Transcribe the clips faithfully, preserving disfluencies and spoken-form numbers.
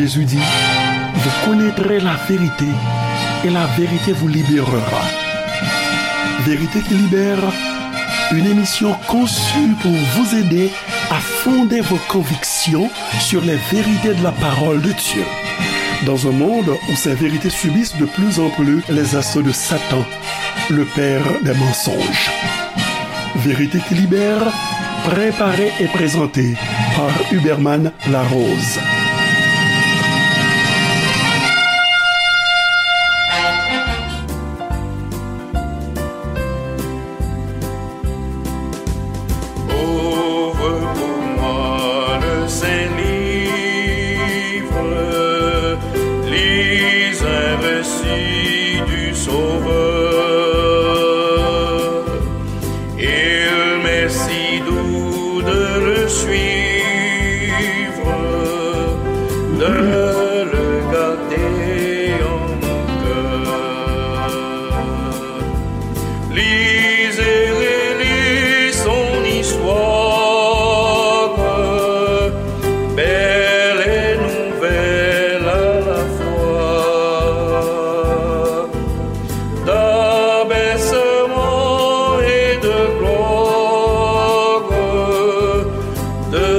Jésus dit, vous connaîtrez la vérité et la vérité vous libérera. Vérité qui libère, une émission conçue pour vous aider à fonder vos convictions sur les vérités de la parole de Dieu. Dans un monde où ces vérités subissent de plus en plus les assauts de Satan, le père des mensonges. Vérité qui libère, préparée et présentée par Huberman Larose. Ouvre pour moi le Saint-Livre, lis un récit du Sauveur. Il m'est si doux de le suivre, de le garder en mon cœur. Lis et relis son histoire, belle et nouvelle à la fois. D'abaissement et de gloire, de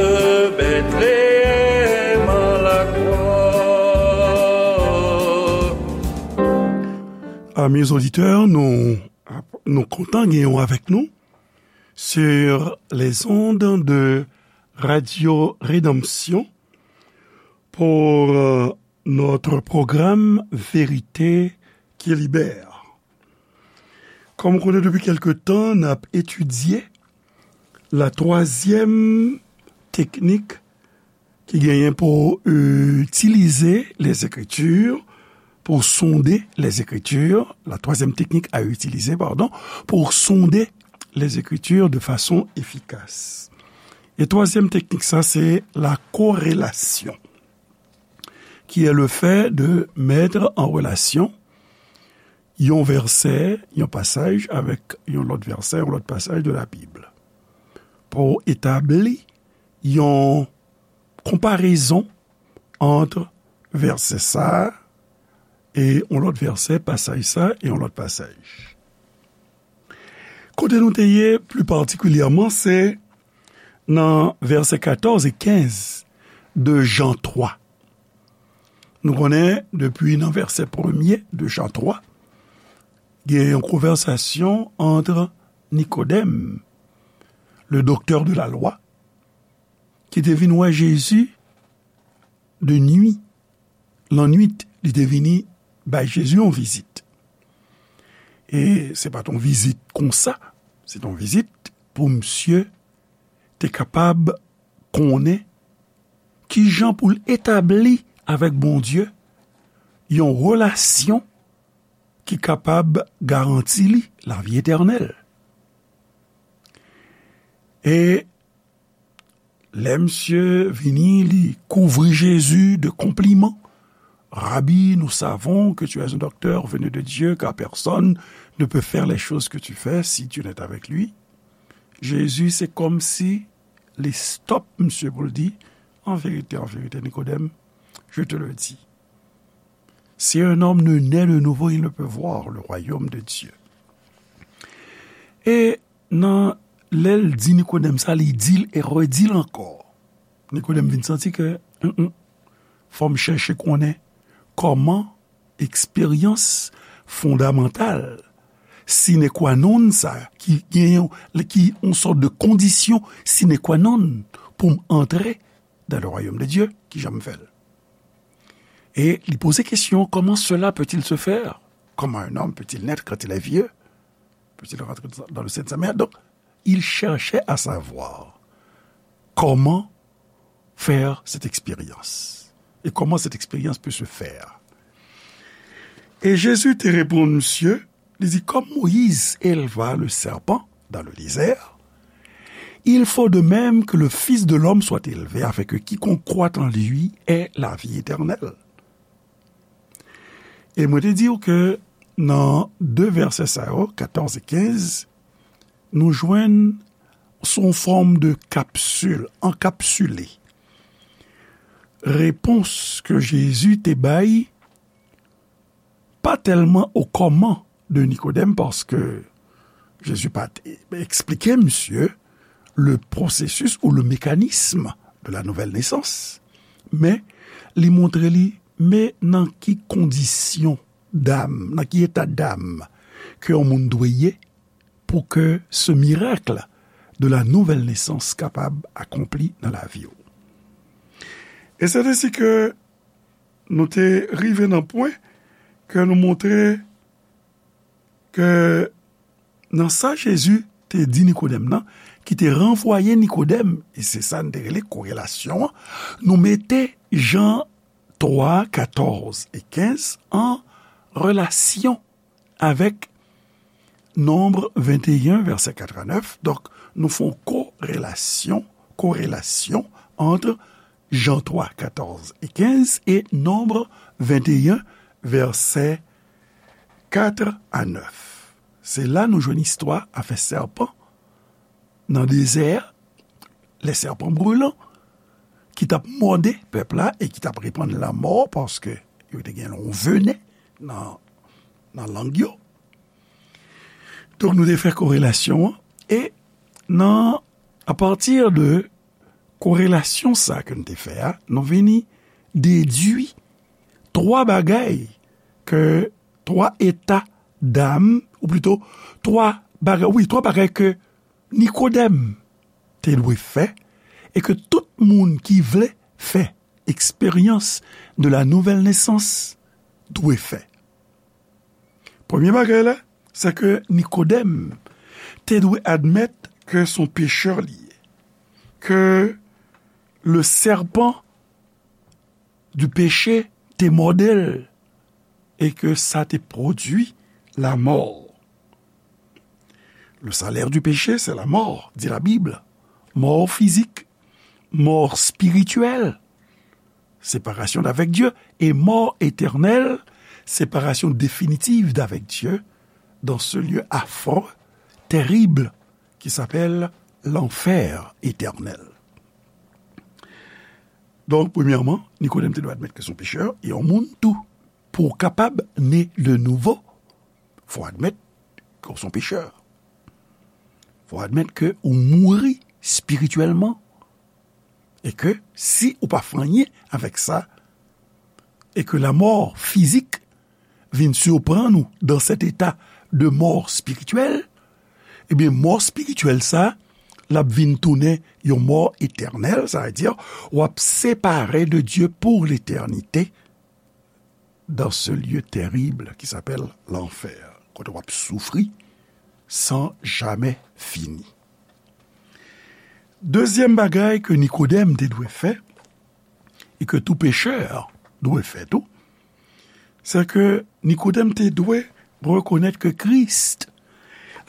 Bethléem à la croix. Amis auditeurs, nou, nou kontan gen w avèk nou sur les ondes de Radio Rédemption pour, euh, notre programme Vérité qui libère. Kòm ou konnen, depi kèlke tan, n ap etidye la twazyèm teknik ki genyen pou, euh, itilize les Écritures, pour sonder les Écritures, la troisième technique à utiliser, pardon, pour sonder les Écritures de façon efficace. E twazyèm teknik sa, se la corrélation, qui est le fait de mettre en relation yon vèsè, yon pasaj avèk yon lòt vèsè, yon lòt pasaj de la Bib. Pou etabli yon konparezon ant vèsè sa a e yon lòt vèsè, pasaj sa a e yon lòt pasaj. Kote nou te ye, pli patikilyèman, se nan vèsè katòz e kenz de Jan twa. Nou konnen, depi nan vèsè premye de Jan twa, gen yon konvèsasyon ant Nikodèm, le docteur de la loi, ki te vin wè Jezi de nwi, lannwit, li te vini bay Jezi yon vizit. E se pa t yon vizit konsa, se t yon vizit pou misye te kapab konnen kijan pou l etabli avèk Bondye yon relasyon ki kapab garanti li lavi etènèl. E lè misye vini, li kouvri Jezi de konpliman. Rabbi, nous savons que tu es un docteur venu de Dieu, car personne ne peut faire les choses que tu fais si Dieu n'est avec lui. Jezi, se kòmsi li stòp misye pou l di, en vérité, en vérité, Nikodèm, je te le dis, si un homme ne naît de nouveau, il ne peut voir le royaume de Dieu. E nan lè l di Nikodèm sa, li di l e redi l ankò. Nikodèm vin santi ke, mm, mm, fò m chèche konnen kòman eksperyans fondamantal, sine qua non sa, ki gen yon, ki yon sòt de kondisyon sine qua non pou m antre dans le royaume de Dieu, kijan m fè l? E li poze kesyon, comment cela peut-il se faire? Comment un homme peut-il naître quand il est vieux? Peut-il rentrer dans le sein de sa mère? Donc, il cherchait à savoir comment faire cette expérience et comment cette expérience peut se faire. Et Jésus te reponn misye, li di, comme Moïse éleva le serpent dans le désert, il faut de même que le Fils de l'homme soit élevé, afin que quiconque croit en lui ait la vie éternelle. E mwen te di w ke nan de vèsè sa yo, katòz e kenz, nou jwenn sou yon fòm de kapsil, ankapsile. repons ke Jezi te bay pa tèlman o kòman de Nikodèm, paske Jezi pa t eksplike misye le processus ou le mécanisme de la nouvelle naissance, men li montre li, men nan ki kondisyon dam, nan ki eta dam ke yon moun dwe ye pou ke ce miracle de la nouvelle naissance kapab akonpli nan lavi w. E se te si ke nou te rive nan pwen ke nou montre ke nan sa Jezi te di Nikodèm nan, ki te ranvwaye Nikodèm, e se sa n te rele korelasyon an, nou mete Jan twa, katòz e kenz an relasyon avèk Nonb venteyen, vèsè kat a nèf. Donk, nou fè yon korelasyon, korelasyon ant Jan twa, katòz e kenz e Nonb venteyen, vèsè kat a nèf. Se la nou jwenn istwa afè sèpan nan dezè a, les serpents brûlants, ki t ap mòde pèp la e ki t ap repann lanmò, paske yo te gen yon venen nan, nan lang yo. Donk, nou te fè korelasyon an, e nan, apati de korelasyon sa ke nou te fè a, nou vini dedui twa bagay ke, twa eta dam, ou plito, twa bagay, wi, twa bagay ke Nikodèm te dwe fè e ke tout moun ki vle fè eksperyans de la nouvelle naissance dwe fè. Premye bagay la, se ke Nikodèm te dwe admèt ke se yon pechè li ye, ke le serpent du péché te mòde l e ke sa te pwodui lamò. Le salaire du péché, c'est la mort, dit la Bible. Mò fizik, mò espirityèl, séparation d'avec Dieu, et mort éternelle, séparation définitive d'avec Dieu, dans ce lieu affreux, terrible, qui s'appelle l'enfer éternel. Donk, premyèman, Nikodèm te dwe admèt ke se yon pechè, e yon moun tou. Pou w kapab ne de nouvo, fò w admèt ke w se yon pechè. Fò w admèt ke ou mouri espirityèlman. E ke si ou pa fè anyen avèk sa, e ke lamò fizik vin siprann ou dans cet état de mort spirituelle, ebyen, mò espirityèl sa, l ap vin tounen yon mò etènèl, sa vle di, w ap separe de Dieu pour l'éternité dans ce lieu terrible qui s'appelle l'enfer, kote w ap soufri san jamè fini. Dezyèm bagay ke Nikodèm te dwe fè, e ke tou pechè dwe fè tou, se ke Nikodèm te dwe rekonèt ke Christ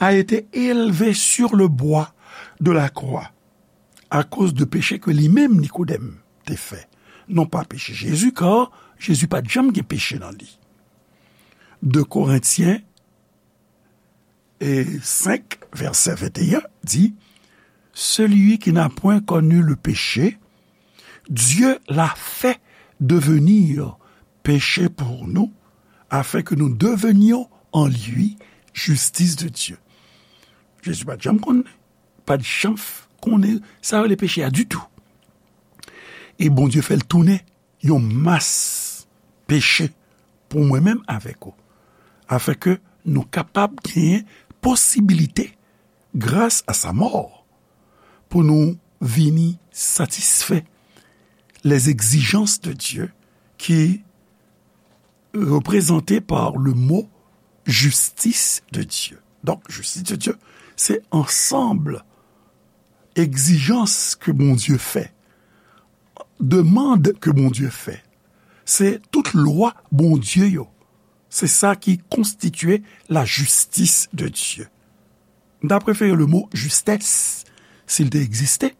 a été élevé sur le bois de la croix akoz de peche ke li menm Nikodèm te fè. Non pa peche Jezi, kar Jezi pa t janm gen peche nan li. De Korentyen e senk, vèsè venteyen, di, celui qui n'a point connu le péché, Dieu l'a fait devenir péché pour nous, afin que nous devenions en lui justice de Dieu. Jezi pa t janm konn, pa t janm konnen sa yo rele peche a ditou. E Bondye fè l tounen yon mas peche pou mwen menm avèk ou, afin ke nou kapab genyen posibilite, gras a sa mò, pou nou vini satisfè les exigences de Dieu ki reprezante par le mo justice de Dieu. Donk, justice de Dieu, se ansanm egzijans ke Bondye fè, demann ke Bondye fè. Se tout lwa Bondye yo. Se sa ki konstitye la justice de Dieu. M ta prefere le mo justesse, si l te egziste,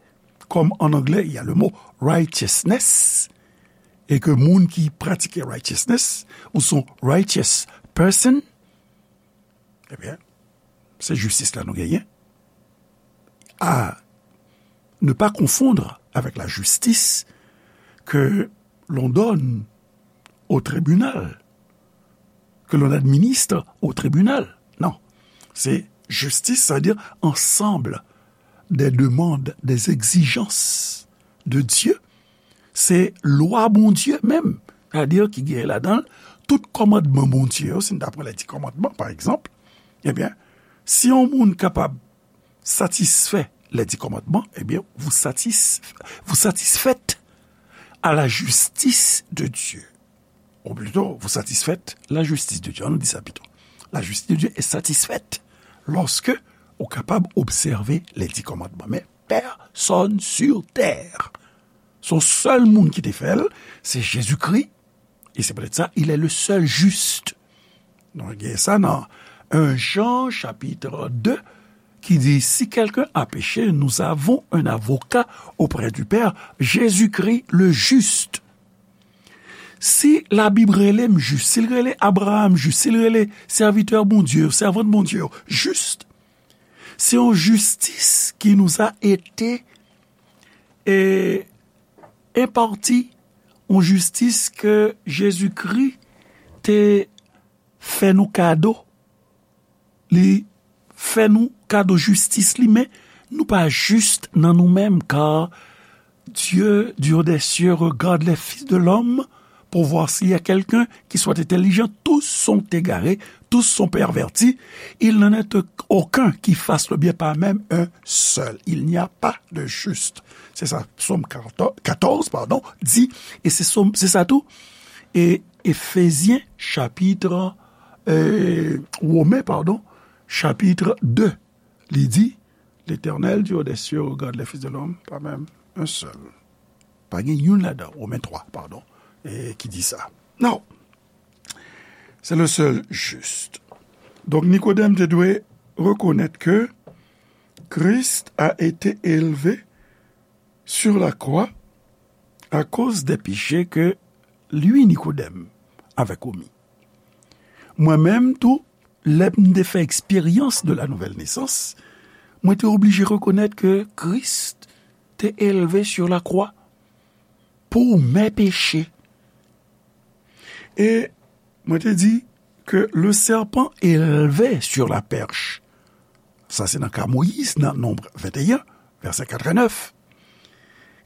kòm an anglè, il y a le mot righteousness, e ke moun ki pratike righteousness, ou son righteous person, ebyen, se jistis la nou genyen. À ne pas confondre avec la justice que l'on donne au tribunal, que l'on administre au tribunal. Non. C'est justice, c'est-à-dire ensemble des demandes, des exigences de Dieu. Se lwa Bondye menm, sètadi ki gen ladan l tout kòmandman Bondye yo, si n ta pran lè di kòmandman, pa egzanp, ebyen, si yon moun kapab satisfè lè di kòmandman, ebyen, vous satis-, vous satisfaites à la justice de Dieu. Ou plito, vous satisfaites la justice de Dieu. Ann nou di sa pito. La justice de Dieu est satisfaite lorsque ou kapab obsève lè di kòmandman. Men pèsòn sur tè. Se yon sèl moun ki te fè l, se Jezikri. E se poutèt sa, il est le seul juste. Nou gen sa nan un Jean chapitre deux ki di, si quelqu'un a péché, nous avons un avocat auprès du Père, Jésus-Christ le juste. Si Labib rele m jis, si l rele Abraham jis, si l rele sèvitè Bondye yo, sèvant Bondye yo jis, se yon jistis ki nous a été, e, enpati, yon jistis ke Jezikri te fè nou kado. Li fè nou kado jistis li, men nou pa jis nan nou menm, car Dieu du haut des cieux regarde les fils de l'homme pour voir s'il y a quelqu'un qui soit intelligent. Tous sont égarés, tous sont pervertis. Il n'en est aucun qui fasse le bien, pas même un seul. Il n'y a pas de juste. Se sa, Sòm quatorze, pardon, di, e se Sòm, se sa tou. E Efezyen, chapitre, euh, Women, pardon, chapitre deux, li di, L'Éternel du haut des cieux regarde les fils de l'homme, pas même un seul. Pa gen youn ladan, Women twa, pardon, e ki di sa. Non. C'est le seul juste. Donk, Nikodèm te dwe rekonèt ke Christ a été élevé sur la croix à cause des péchés que lui, Nikodèm, avait commis. Mwen menm tou, lè m te fè eksperyans de la nouvelle naissance, mwen te oblije rekonèt ke Kris te elve sur la croix pour mes péchés. E mwen te di ke le serpent élevé sur la perche, sa se nan ka Moyiz, nan Nonb venteyen, vèsè katrevennèf,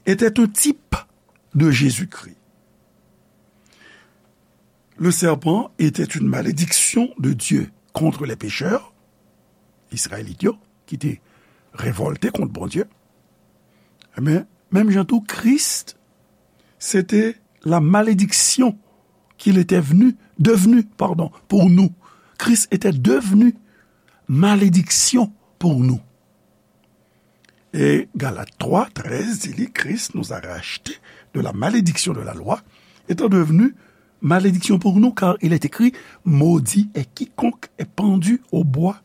était un type de Jésus-Christ. Le serpent était une malédiction de Dieu contre les pécheurs, Izrayelit yo, ki te revòlte kont Bondye. Men, menm jan tou, Kris, se te la malédiction qu'il était venu, devenu, pardon, pour nous. Christ était devenu malédiction pour nous. Et Galates trois treize dit, Christ nous a rachetés de la malédiction de la loi, étant devenu malédiction pour nous, car il est écrit, maudit est quiconque est pendu au bois.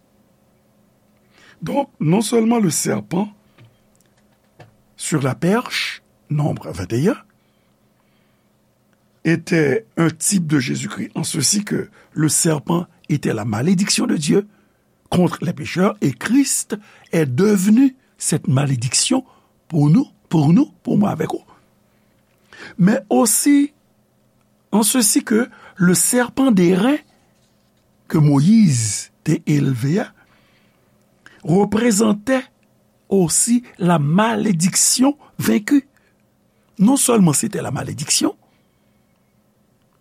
Donc, non seulement le serpent sur la perche, Nombre vingt et un, était un type de Jésus-Christ, en ceci que le serpent était la malédiction de Dieu contre les pécheurs, et Christ est devenu cette malédiction pour nous, pour nous, pour moi avec vous. Mais aussi, en ceci que le serpent d'airain que Moïse te élevé a représentait aussi la malédiction vaincue. Non sèlman se te la malediksyon,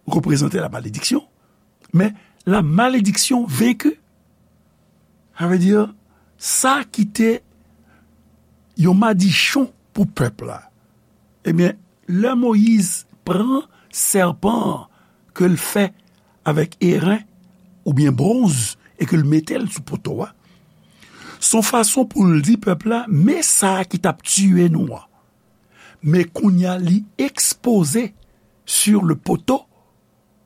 reprezante la malediksyon, men la malediksyon venki. Sa vle di, sa ki te yon madichon pou pèp la. Ebyen, lè Moyiz pran sèpan an ke l fè avèk eren oubyen bwonz e ke l mete l sou poto a, se yon fason pou l di pèp la, men sa a ki t ap tiye nou an. Men kounye a, li ekspoze sur le poteau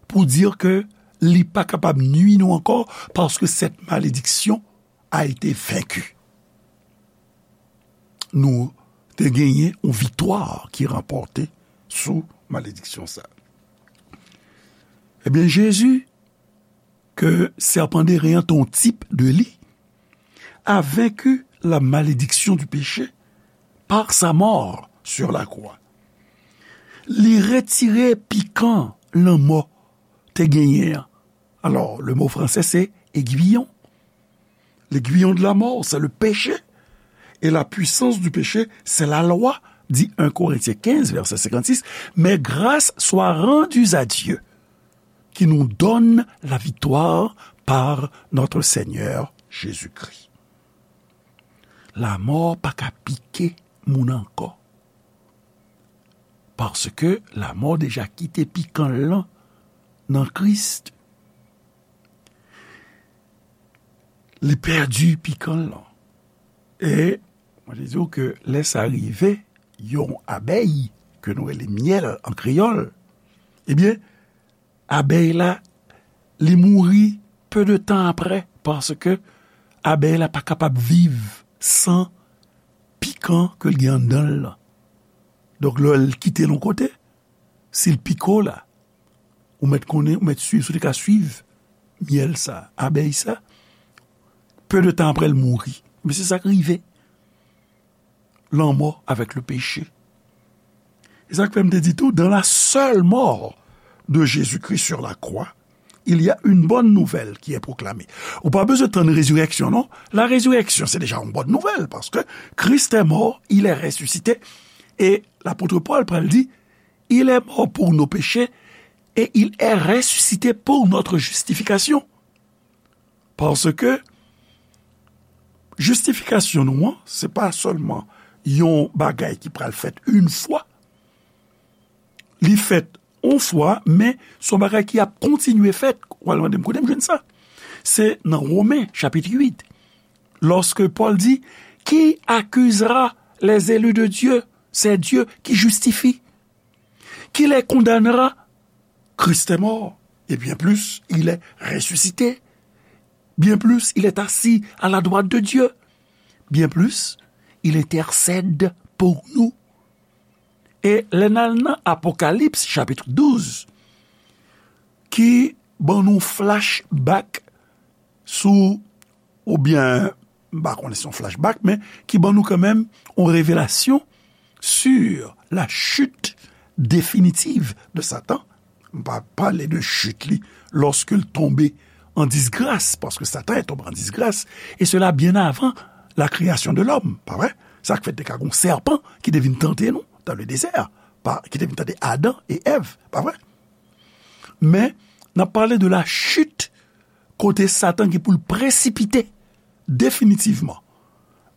pour dire que li pa kapab nui nou ankò, parce que cette malédiction a été vaincue. Nou te genyen yon viktwa ki ranpòte sou malediksyon sa. Ebyen, Jezi, ke sèpan deren an te yon tip de li, a vaincu la malédiction du péché par sa mort sur la croix. Li retire pikan lanmò te genyen an. Alors, le mot français, c'est aiguillon. L'aiguillon de la mort, c'est le péché. Et la puissance du péché, c'est la loi, dit un Corinthiens quinze, verset cinquante-six. Mais grâce soit rendue à Dieu, qui nous donne la victoire par notre Seigneur Jésus-Christ. Lanmò pa ka pike moun ankò. Paske lanmò deja kite pikan l lan nan Kris. Li pèdi pikan l lan. E mwen te di w ke lè sa rive, yon abèy, ke nou rele myèl an kreyòl, ebyen, abèy la, li mouri pe de tan apre, paske abèy la pa kapab viv san pikan ke l gen anndan l lan. Donk, lè l kite l yon kote, si l pike w la, ou mèt konnen, ou mèt swiv, si w te ka swiv myèl sa, abèy sa, pe de tan apre l mouri. Men se sa k rive. Lanmò avèk le péché. E sa k fè m te di tou, dans la seule mort de Jésus-Christ sur la croix, il y a une bonne nouvelle qui est proclamée. Ou pa bezwen tann rezirèksyon, non. La résurrection, c'est déjà une bonne nouvelle, parce que Christ est mort, il est ressuscité. Et l'apôtre Paul pral di, il est mort pour nos péchés et il est ressuscité pour notre justification. Paske jistifikasyon nou an, se pa sèlman yon bagay ki pral fèt yon fwa. Li fèt yon fwa, men se yon bagay ki ap kontinye fèt. Ou al mande m kote m jwenn sa. Se nan Women, chapit uit, lòske Pòl di, qui accusera les élus de Dieu? C'est Dieu qui justifie. Qui les condamnera? Christ est mort, et bien plus, il est ressuscité. Bien plus, il est assis à la droite de Dieu. Bien plus, il intercède pour nous. E lè n al nan Apokalips, chapit douz, ki ban nou flashback sou, oubyen, m pa konnen si se yon flashback, men ki ban nou kanmenm yon revelasyon sur la chute définitive de Satan. M pa pale de chit li lòske l tonbe an disgras, paske Satan est tombé en disgrâce, et cela bien avant la création de l'homme, pa vre? Sa k fè te ka gon sèpan ki te vin tante nou dans le désert, pa, ki te vin tante Adan e Èv, pa vre? Men, n ap pale de la chute, kote Satan gen pou l presipite definitivman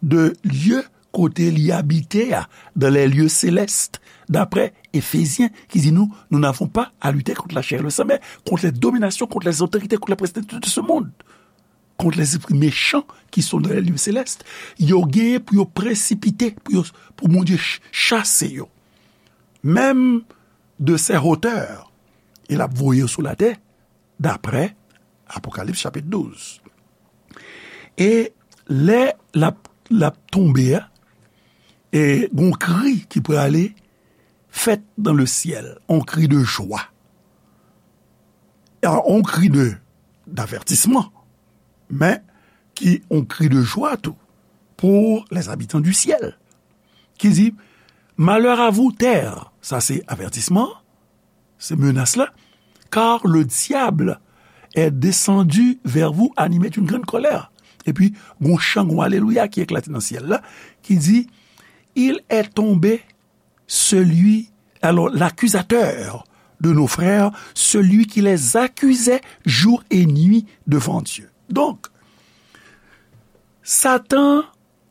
de lye kote li abite a, dans les lieux célestes, daprè Efezyen, ki di nou, nous n'avons pas à lutter contre la chair et le sang, mais contre les dominations, contre les autorités, contre les principautés de ce monde, contre les esprits méchants qui sont dans les lieux célestes. Yo genyen pou yo presipite, pou yo, pou Bondye ch-, chase yo. Menm de ces hauteurs, e l ap voye yo sou latè, daprè Apokalips chapit douz. E lè l ap, l ap tonbe a, e gon kri ki prale fèt dans le ciel, on cri de joie. A, on cri de, d'avertissement, men ki on cri de joie tou pour les habitants du ciel, ki di, malheur à vous, terre, sa se avètisman, se menas la, car le diable est descendu vers vous animé d'une grande colère. Epi, gon chan, gon alelouya ki eklate nan syèl la, ki di, il est tombé celui, alors l'accusateur de nos frères, celui qui les accusait jour et nuit devant Dieu. Donk, Satan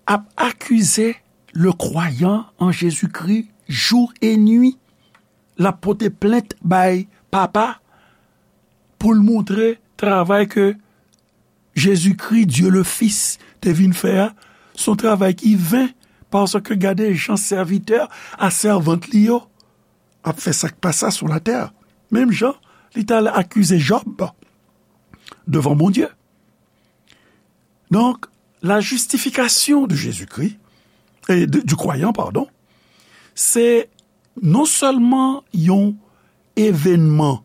ap akize le kwayan an Jezikri jou e nwi. L ap pote plent bay Papa pou l montre travay ke Jezikri, Dye le Fis, te vin fè a, se yon travay ki ven, paske gade jan sèvitè a sèvant li yo ap fè sa k pa sa sou latè. Menm jan li t al akize Jòb devan Bondye. Donk, la justification de Jésus-Christ, e de, du croyant, pardon, se non sèlman yon evènman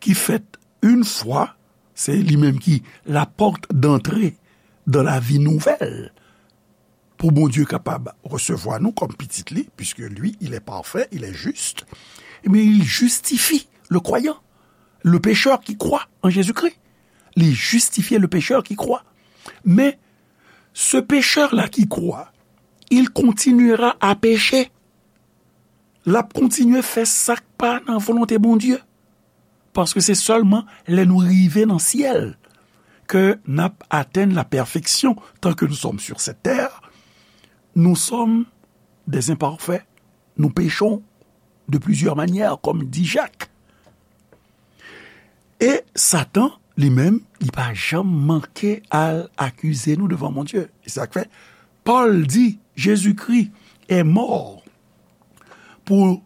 ki fèt yon fwa, se li menm ki la porte d'entrée dans la vie nouvelle, pou Bondye kapab resevwa nou kòm pitit li, puisque lui, il est parfait, il est juste, mais il justifie le croyant, le pécheur qui croit en Jésus-Christ. Il justifie le pécheur qui croit. Mais ce pécheur-là qui croit, il continuera à pécher. L ap kontinye fè sa k pa nan volonte Bondye. Paske se sèlman lè nou rive nan syèl ke n ap atenn la perfection tant que nous sommes sur cette terre. Nous sommes des imparfaits. Nous péchons de plusieurs manières, comme dit Jacques. E Satan, li menm, li pa janm manke al akize nou devan Bondye. E se sa k fè Pòl di, Jésus-Christ est mort pour,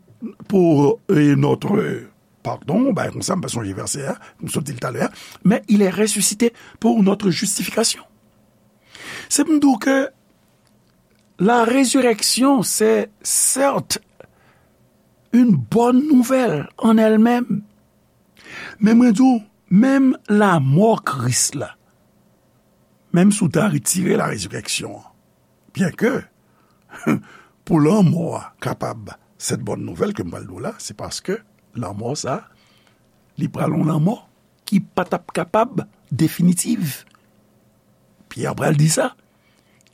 pour euh, notre pardon, bagay konsa, m pa sonje vèsè a, m sot di l talè a, mais il est ressuscité pour notre justification. Se pou m di w ke la résurrection, c'est certes une bonne nouvelle en elle-même. Men mwen di w, menm lanmò Kris la, menm si w ta retire la résurrection an, byen ke pou lanmò a kapab cette bonne nouvelle ke m pral di w la, se paske lanmò sa, li pral yon lanmò ki pa t ap kapab definitive. Pyè pral di sa,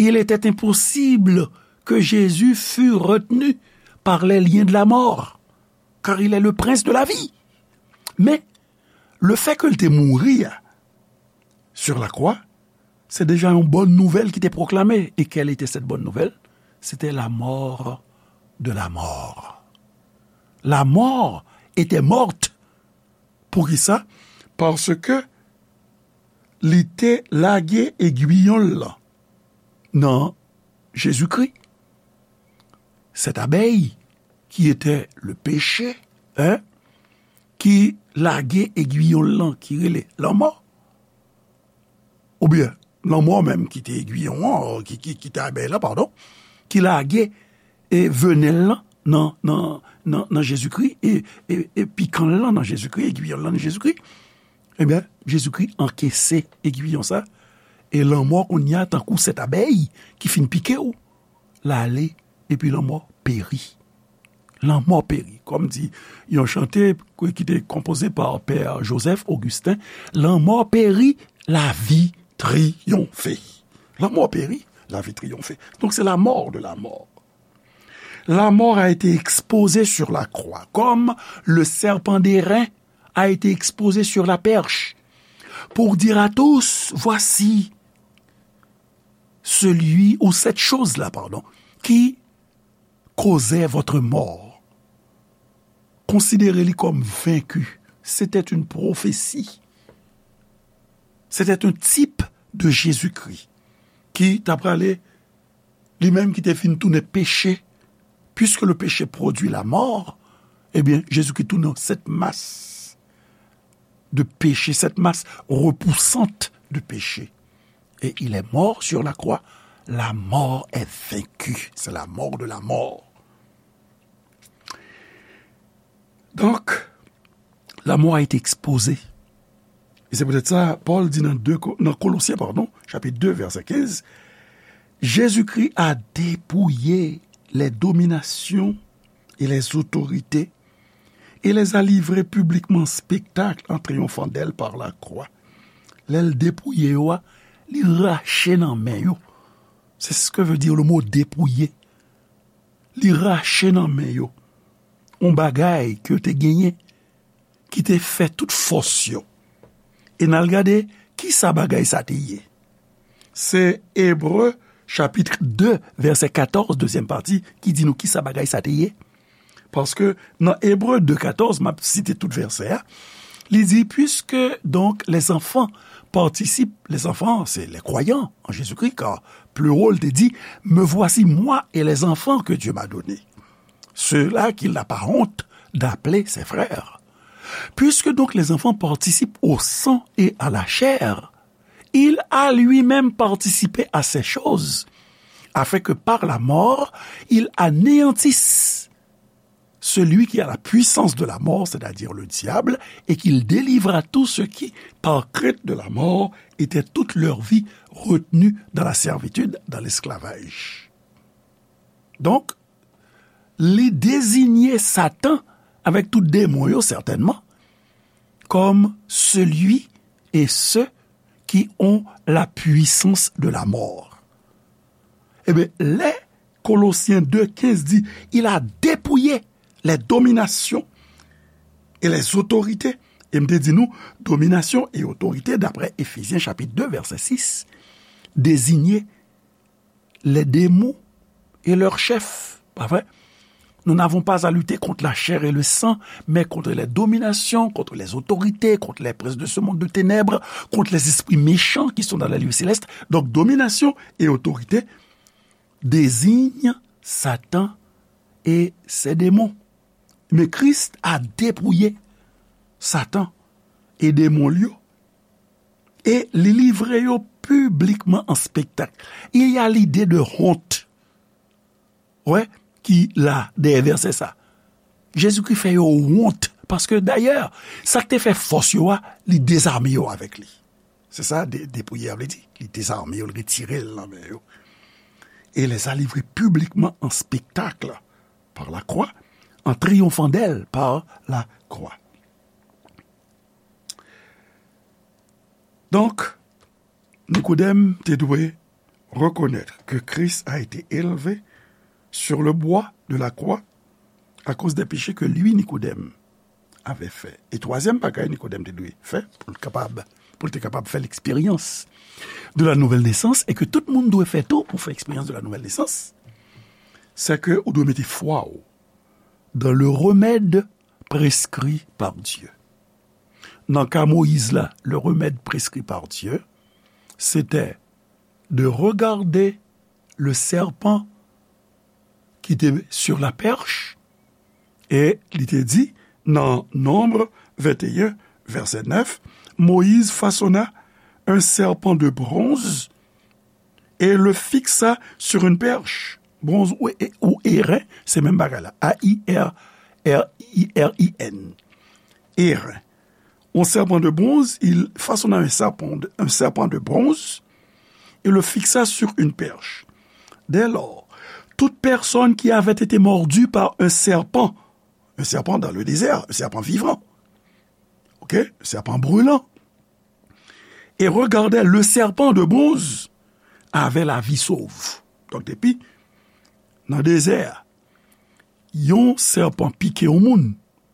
il était impossible que Jésus fût retenu par les liens de la mort, car il est le prince de la vie. Men, le fait ke l te mouri a, sur la croix, se deja yon bòn nouvèl ki te pwoklame. E quelle était cette bonne nouvelle? C'était la mort de la mort. La mort était morte. Poukisa? Paske li te lage egwiyon l lan nan Jezikri. Cette abeille qui était le péché, hein, ki lage egwiyon l lan ki rele lanmò, oubyen lanmò menm ki te egwiyon an, ki, ki, ki te abèy lan, padon, ki lage e venèl lan nan, nan, nan, nan Jezikri, e, e, e pikan l lan nan Jezikri, egwiyon l lan nan Jezikri, ebyen, Jezikri ankese egwiyon sa, e lanmò kounye a tankou sèt abèy ki fin pike w, l ale, epi lanmò peri. Lanmò peri. Kòm di yon chante ki te konpoze pa Pè Joseph Augustin, lanmò peri, lavi triyonfe. Lanmò peri, lavi triyonfe. Donc c'est la mort de la mort. La mort a été exposée sur la croix, comme le serpent d'airain a été exposé sur la perche, pour dire à tous, voici celui ou cette chose-là, pardon, qui causait votre mort. Konsidere li kòm venki. C'était une prophétie. C'était un type de Jésus-Christ ki t ap prale, li menm ki te fin tounen peche. Puisque le péché produit la mort, ebyen, Jezikri tounen cette masse de péché, cette masse repoussante de péché. Et il est mort sur la croix. La mort est vaincue. C'est la mort de la mort. Donc, la mort a été exposée. E se poutèt sa, Pòl di nan de Ko-, nan Kolosyen, padon, chapit de, vèsè kenz, Jésus-Christ a dépouillé les dominations et les autorités et les a livrées publiquement en spectacle en triomphant d'elles par la croix. Lè l depouye yo a, li rache nan men yo. C'est ce que veut dire le mot dépouiller. Li rache nan men yo yon bagay ke yo te genyen, ki te fè tout fòs yo. E n al gade ki sa bagay sa te ye. Se Ebre, chapit de, vèsè katòz, dezyèm pati, ki di nou ki sa bagay sa te ye. Paske nan Ebre de katòz, m ap site tout vèsè a, li di, puisque donc les enfants participent, les enfants, c'est les croyants en Jésus-Christ, car plus haut, il te dit, me voici moi et les enfants que Dieu m'a donnés, ceux-là qu'il n'a pas honte d'appeler ses frères. Puisque donc les enfants participent au sang et à la chair, il a lui-même participé à ces choses, afin que par la mort, il anéantisse celui qui a la puissance de la mort, c'est-à-dire le diable, et qu'il délivre à tous ceux qui, par crainte de la mort, étaient toute leur vie retenus dans la servitude, dans l'esclavage. Donc, li deziye Satan avec tout démon yo, certainement, comme celui et ceux qui ont la puissance de la mort. Ebyen, lè Kolosyen de kenz di, il a dépouillé les dominations et les autorités. E m te di nou, dominasyon e otorite, daprè Efezyen chapit de, vèsè sis, désigne les démons et leurs chefs. Pa vre? Nous n'avons pas à lutter contre la chair et le sang, mais contre les dominations, contre les autorités, contre les princes de ce monde de ténèbres, contre les esprits méchants qui sont dans les lieux célestes. Donc, domination et autorité désignent Satan et ses démons. Men Kris a depouye Satan e demon l yo, e li livre yo piblikman an spektak. Il y a l'idée de honte, wè, ki la dèyè vèsè sa. Jezikri fè yo wont, paske dayè, sa k te fè fòs yo a, li dezame yo avèk li. Se sa, de-, depouye a vle di. Li dezame yo, li retire l nan men yo. Et les a livrés publiquement en spectacle par la croix, en triomphant d'elle par la croix. Donc, Nikodèm te dwe reconnaître que Christ a été élevé sur le bois de la croix à cause des péchés que lui, Nikodèm, avait fait. E twazyèm bagay Nikodèm te dwe fè pou l kapab, pou l te kapab fè l'expérience de la nouvelle naissance, e ke tout moun dwe fè tou pou fè eksperyans de la nouvelle naissance, c'est que ou dwe mete fwa w dans le remède prescrit par Dieu. Nan ka Moyiz la, le remède prescrit par Dieu, c'était de regarder le serpent ki te sur la perche, e li te di, nan Nonb venteyen, vèsè nèf, Moïse façonna un serpent de bronze et le fixa sur une perche. Bronz ou, ou erin, se menm bagay la. A I R, R I R I N. Erin. Un serpent de bronze, il façonna un serpent de, un serpent de bronze et le fixa sur une perche. Dès lors, toute personne qui avait été mordue par un serpent, un serpent dans le désert, un serpent vivant, ok, un serpent brûlant, et regardait le serpent de bronze, avait la vie sauve. Donk, depi nan dezè a, yon sèpan pike yon moun,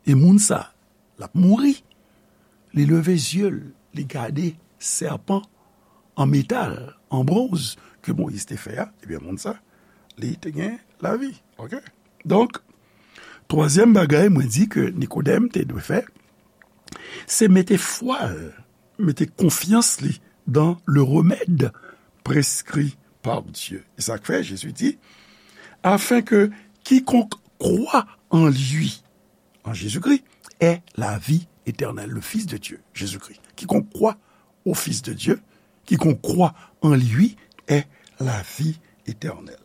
e moun sa, l ap mouri. Li leve zye l, li gade sèpan an metal, an bronz, ke Moyiz te fè a, ebyen, moun sa, li te gen lavi. Ok? Donk, twazyèm bagay mwen di ke Nikodèm te dwe fè, se mete fwa l, mete konfyans li dans le remède prescrit par Dieu. E sa k fè Jezi di, afin que quiconque croit en lui, en Jésus-Christ, ait la vie éternelle, le Fils de Dieu, Jésus-Christ. Quiconque croit au Fils de Dieu, quiconque croit en lui, ait la vie éternelle.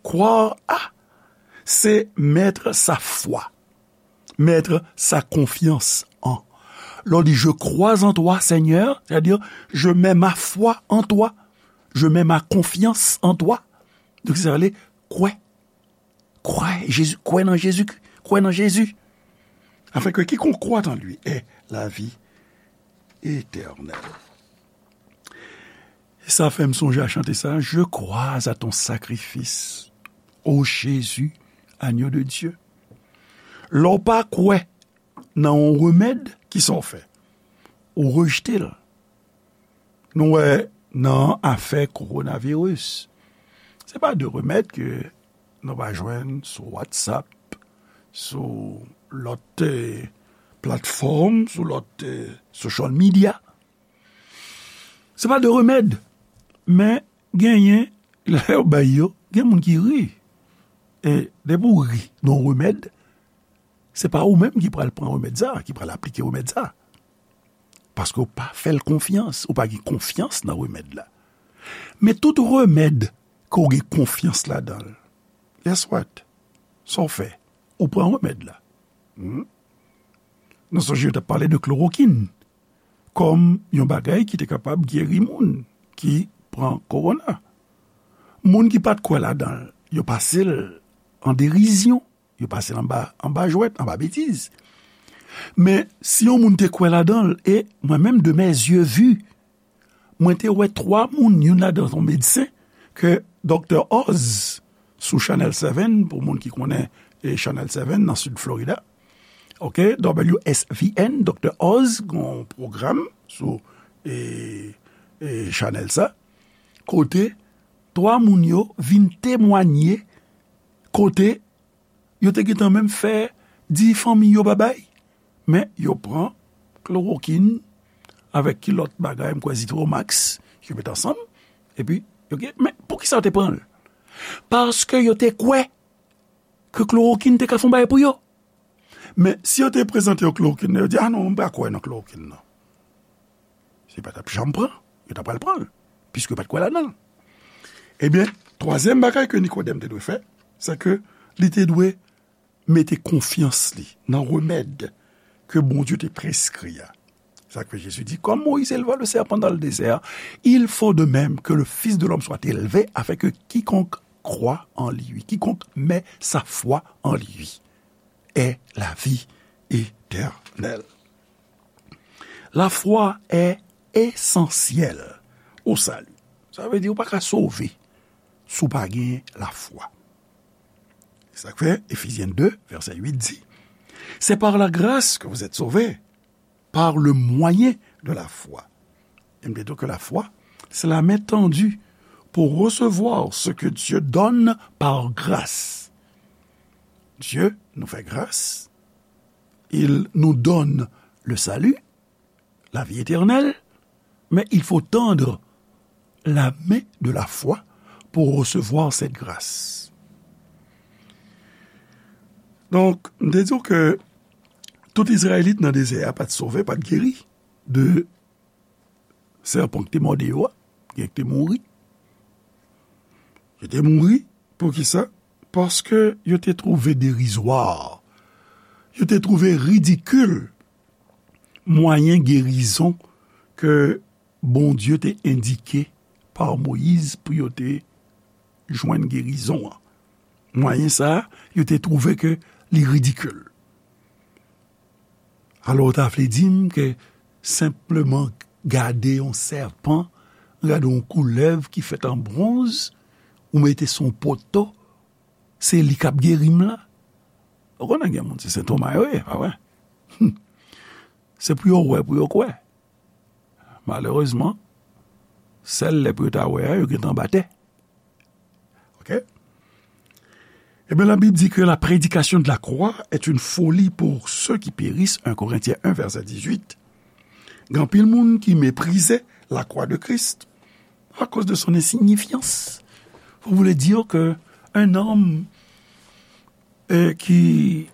Croire à, c'est mettre sa foi, mettre sa confiance en. Lè w di, je crois en toi, Seigneur, c'est-à-dire, je mets ma foi en toi, je mets ma confiance en toi. Donk, sa vle, kwè. Kwè Jezi, kwè nan Jezi, kwè nan Jezi. Afin que quiconque croit en lui ait la vie éternelle. E sa fè m sonje a chante sa, Je crois à ton sacrifice, ô Jésus, agneau de Dieu. Lè w pa kwè nan yon remèd, kisa w fè? Ou rejte l. Nou wè nan afè kowonaviris, se pa de remèd ke nou va jwenn sou WhatsApp, sou lòt, eh, platfòm, sou lòt, eh, social media. Se pa de remèd, men genyen, lè yo bay yo, gen moun ki ri. E depi w ri nan yon remèd, se pa ou menm ki pral pran remèd sa, ki pral aplike remèd sa. Paske w pa fè l konfyans, ou pa gen konfyans nan remèd la. Men tout remèd ke w gen konfyans ladan l, guess what? Sa w fè? Ou pran remèd la. Hmm? Nou sonje yo t ap pale de klorokin kòm yon bagay ki te kapab geri moun ki pran kowona. Moun ki pa t kwè ladan l, yo pase l an derizyon. Yo pase l anba, anba jwèt, anba betiz. Men, si yon moun te kwè ladan l, e mwen menm, de mes yeux vus, mwen te wè twa moun, youn ladan se yon medsen, ke Doktè Oz, sou Channel Seven, pou moun ki konnen, e, Channel Seven nan Sid Florida, oke, W S V N, Doktè Oz, gen yon pwogram sou, e, e, chanèl sa, kote twa moun yo vin temwanye, kote yo te gentan menm fè di fanmi yo babay, men yo pran klorokin avèk ki lòt bagay, m kwè Zitromax, yo met ansanm, epi yo gen, men poukisa yo te pran l? Paske yo te kwè ke klorokin te ka fè yon bagay pou yo. Men si yo te prezante yo klorokin nan, yo di, "A non, m pa kwè nan klorokin nan." Se pa t ap janm pran, yo ta pral pran l, piske yo pa t kwè ladan l. Ebyen, twazyèm bagay ke Nikodèm te dwe fè, se ke li te dwe mete konfyans li nan remèd ke Bondye te preskri a. Sa k fè Jezi di, "Comme Moïse éleva le serpent dans le désert, il faut de même que le Fils de l'homme soit élevé, afin que quiconque croit en lui, quiconque met sa foi en lui, ait la vie éternelle." La foi est essentielle au salut. Sa vle di ou pa ka sove si w pa gen lafwa. Se sa k fè Éphésiens deux, verset huit di, "C'est par la grâce que vous êtes sauvés, par le moyen de la foi." Et m te di ke lafwa, c'est la main tendue pour recevoir ce que Dieu donne par grâce. Dieu nous fait grâce, il nous donne le salut, la vie éternelle, mais il faut tendre la main de la foi pour recevoir cette grâce. Donk, m te di w ke tout Izrayelit nan dezè a pa t sove, pa t geri de sèpan ki te mòde yo a, gen ki te mouri. Yo te mouri, poukisa? Paske yo te twouve derizwa, yo te twouve ridikil mwayen gerizon ke Bondye te endike pa Moyiz pou yo te jwenn gerizon an. Mwayen sa a, yo te twouve ke li ridikil. Alò, w ta vle di m ke senpleman gade yon sèpan, gade yon koulèv ki fèt an bwonz, ou mete sou yon poto, se li k ap geri m la? Ou konnen gen moun, se sentoma yo ye, pa vre? Hum. Se pou yo wè, pou yo kwè. Malerezman, sèl lè pou yo ta wè a, yo gentan anba tè. Oke? Ebyen, la Bible dit que la prédication de la croix est une folie pour ceux qui périssent, un Corinthiens un, verset dix-huit. Gen anpil moun ki meprize la croix de Christ à cause de son insignifiance. Vous voulez dire que un homme, euh, qui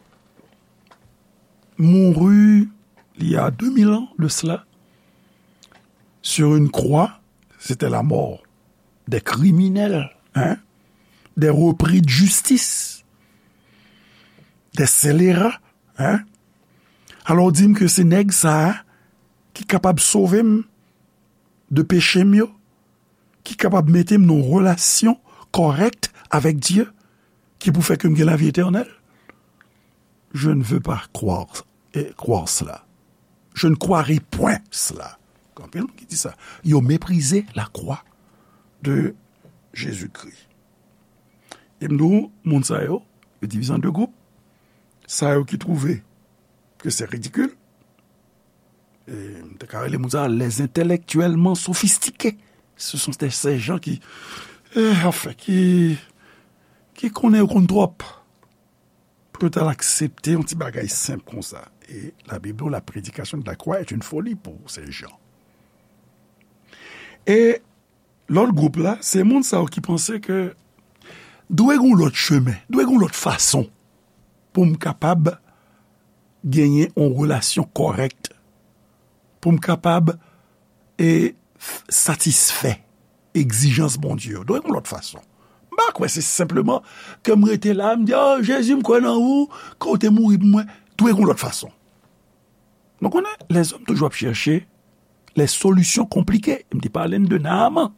mourut il y a deux mille ans de cela, sur une croix, c'était la mort des criminels, hein, des repris de justice, des scélérats, hein. Alò, w di m ke se nèg sa a ki kapab sove m de peche m yo, ki kapab mete m nan yon relasyon kòrèk avèk Dye, ki pou fè ke m gen lavi etènèl? Je ne veux pas croire, eh, croire cela. Je ne croirai point cela. Gen anpil moun ki di sa. Yo meprize la croix de Jésus-Christ. E m di w, moun sa yo, yo divize an de gwoup. Sa yo ki twouve ke se ridikil, e m te ka rele moun sa les intellectuellement sophistiqués. Ce sont des, ces gens qui, eh, anfen, ki, ki konnen yo konn twòp pou yo t al aksepte yon ti bagay senp konsa. E Labib di w, la prédication de la croix est une folie pour ces gens. E lòt gwoup la, se moun sa yo ki panse ke dwe gen yon lòt chemen, dwe gen yon lòt fason pou m kapab genyen yon relasyon kòrèk, pou m kapab, e, f-, satisfè egzijans Bondye yo. Dwe gen yon lòt fason. M pa kwè se senpleman ke m rete la, m di, "O, Jezi, m kwè nan ou, ke w te mouri pou mwen." Dwe gen yon lòt fason. Nou konnen, lèzòm toujou ap chèche les solutions compliquées. M te pale n de Naaman.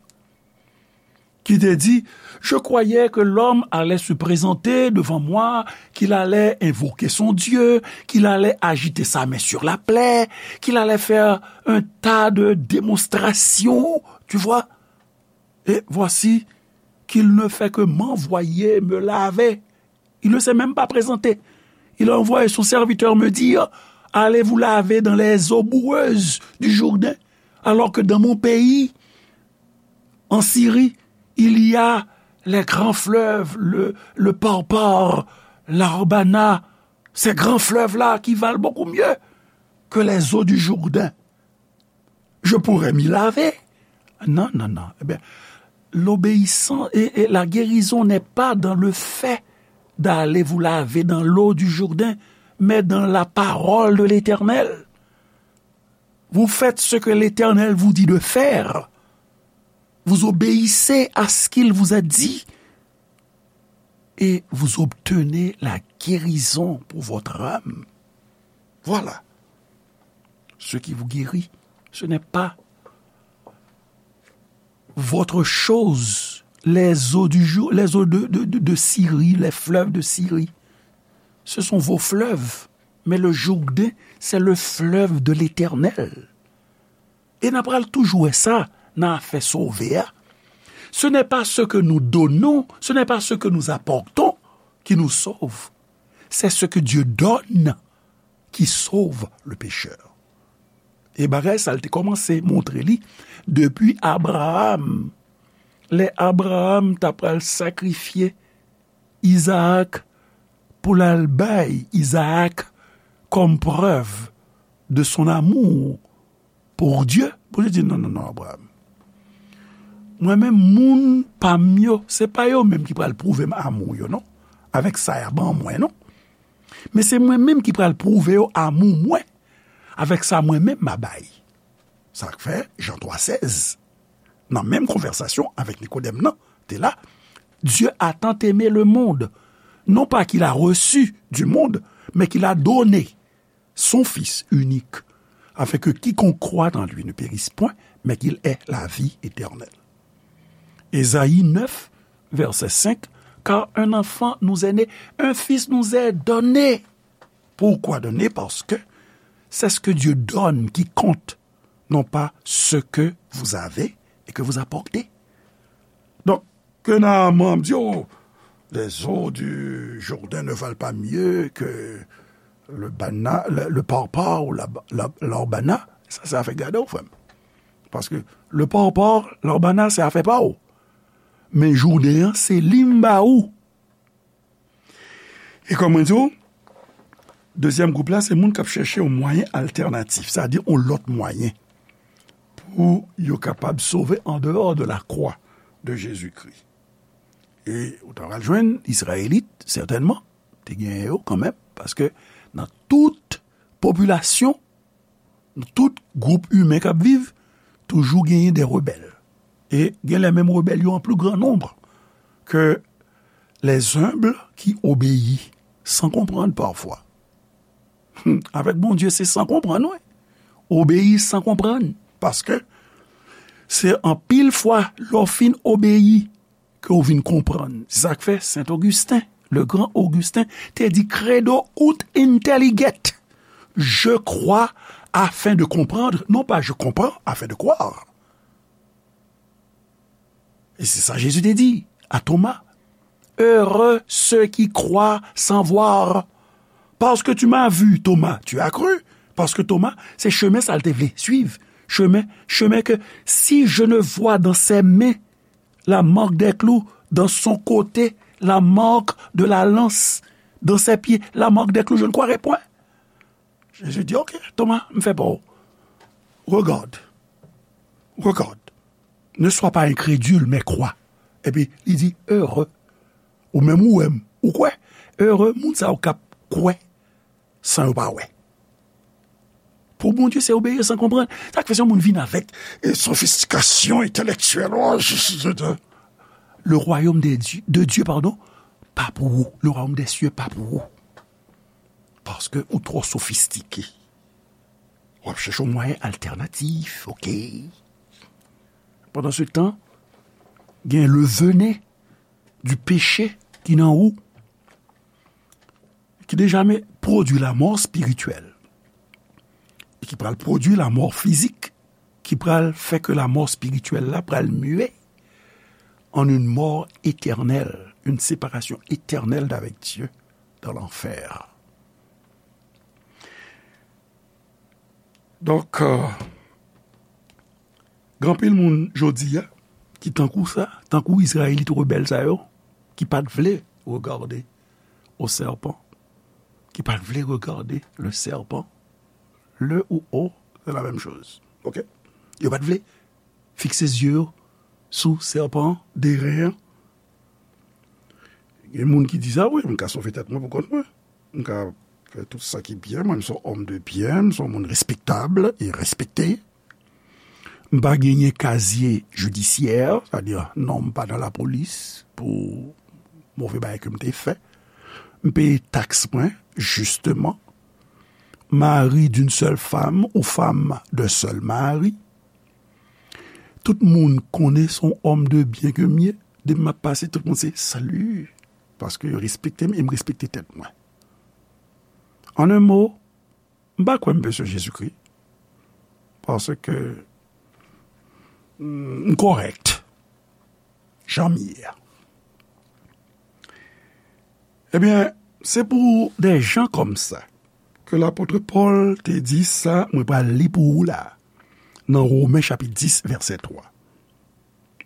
qui te dit, je croyais que l'homme allait se présenter devant moi, qu'il allait invoquer son Dieu, qu'il allait agiter sa main sur la plaie, qu'il allait faire un tas de démonstrations, tu vois. Et voici qu'il ne fait que m'envoyer me laver. Il ne s'est même pas présenté. Il a envoyé son serviteur me dire, allez vous laver dans les eaux boueuses du Jourdain, alors que dans mon pays, en Syrie, il y a les grands fleuves, le, le Parpar, l'Arbana, ces grands fleuves-là qui valent beaucoup mieux que les eaux du Jourdain. Je pourrais m'y laver. Non, non, non. Eh bien, l'obéissance et, et la guérison n'est pas dans le fait d'aller vous laver dans l'eau du Jourdain, mais dans la parole de l'Éternel. Vous faites ce que l'Éternel vous dit de faire. Vous obéissez à ce qu'il vous a dit et vous obtenez la guérison pour votre âme. Voilà ce qui vous guérit. Ce n'est pas votre chose, les eaux du jour, les eaux de, de, de, de Syrie, les fleuves de Syrie. Ce sont vos fleuves. Mais le Jourdain, c'est le fleuve de l'Éternel. E n a pral toujou wè sa nan afè sove a. Ce n'est pas ce que nous donnons, ce n'est pas ce que nous apportons qui nous sauve. C'est ce que Dieu donne qui sauve le pécheur. E bagay sa l te kòmanse montre li depi Abraram. Lè Abraram ta pral sakrifye Izaak pou l al bay Izaak comme preuve de son amour pour Dieu, Bondye di, non, non, non, Abraram. Mwen menm, moun pa m yo, se pa yo menm ki pral pwouve m amou yo, non. Avèk sa y a ban mwen, non. Men se mwen menm ki pral pwouve yo amou mwen, avèk sa mwen menm m a bay. Sa k fè, Jan twa sèz, nan menm konvèsasyon avèk Nikodèm nan, te la, Dieu a tant aimé le monde, non pas qu'il a reçu du monde, mais qu'il a donné son Fils unique, afin que quiconque croit en lui ne périsse point, mais qu'il ait la vie éternelle. Ésaïe neuf, verset cinq, car un enfant nous est né, un fils nous est donné. Pourquoi donné? Parce que c'est ce que Dieu donne qui compte, non pas ce que vous avez et que vous apportez. Donc, que Naaman di, oh, les eaux du Jourdain ne valent pas mieux que le bana, le, le parpar ou la, la, l'arbana, sa se afè gade w, frè m. Paske le parpar, l'arbana, se afè pa w. Men Jourdain an, se li m ba ou. E kòm mwen di w, dezyèm gwoup la, se moun k ap chèche yon mwayen altènatif, sa di yon lòt mwayen pou yo kapab sove an dehors de la croix de Jésus-Christ. E ou ta pral jwenn Izrayelit, sètènman, te genyen yo kanmenm, paske nan tout popilasyon, nan tout gwoup imen k ap viv, toujou genyen de rebèl. E gen lè menm rebèl yo an pli gran nonb ke les humbles qui obéissent sans comprendre parfois. Hmm, avèk Bondye, se san konprann, wi. Obeyi san konprann. Paske se anpil fwa, lè w fin obeyi, ke w vin konprann. Se sa k fè Saint Augustin, le grand Augustin, te di, credo ut intelliget. Je crois afin de comprendre, non pas je comprends afin de croire. E se sa Jezi te di a Toma, heureux ceux qui croient sans voir. Parce que tu m'as vu, Thomas, tu as cru. Paske Toma, se chemen sa l te vle swiv. Chemen, chemen ke si je ne vois dans ses mains la marque des clous, dans son côté la marque de la lance, dans ses pieds la marque des clous, je ne croirai point. Jezi di, ok, Toma, m fè pa w. Regarde, regarde, ne sois pas incrédule, mais crois. Epi li di, heureux. Ou menm ou wè m, ou kwè? Heureux moun sa yo k ap kwè san yo pa wè. Pou Bondye, se obeyi san konprann. Sa k fè se yon moun vin avèk, e, sofistikasyon entèlektyèl. Oh, je, je, je, le royaume de Dieu, de Dieu, pardon, pa pou ou. Le royaume des cieux pa pou ou. Paske ou twò sofistike. W ap chèche yon mwayen altènatif, ok? Pandan se tan, gen le venin du péché ki nan ou, ki deja men pwodui lanmò espirityèl, e ki pral pwodui lanmò fizik, ki pral fè ke lanmò espirityèl la pral mye en une mort éternelle, une séparation éternelle d'avec Dieu dans l'enfer. Donk, euh, gen anpil moun jodi a ki tankou sa, tankou Izrayelit rebèl sa yo, ki pa t vle regade o sèpan, ki pa t vle regade le serpent, le ou o, c'est la même chose. Ok? Yo pa t vle fikse zye yo sou sèpan, de ren an. Gen moun ki di sa, wi, m ka sove tèt mwen pou kont mwen. M ka fè tout sa ki byen. Mwen, m se yon òm de byen, m se yon moun respektab e respekte. M pa genyen kazye jidisyè, sètadi non m pa nan lapolis pou move bagay ke m te fè. M peye taks mwen, jisteman. Mari d'une seule femme ou femme d'un seul mari. Tout moun konnen se yon òm de byen ke m ye. Depi m ap pase, tout moun se, "Salut." Paske yo respekte m e m respekte tèt mwen. An en mo, m pa kwè m bezwen Jezikri. Paske, mm, m kòrèk. Jan m ye a. Ebyen, se pou de jan kòm sa ke lapot Pòl te di sa, mwen pral li pou ou la, nan Women chapit dis, vèsè twa.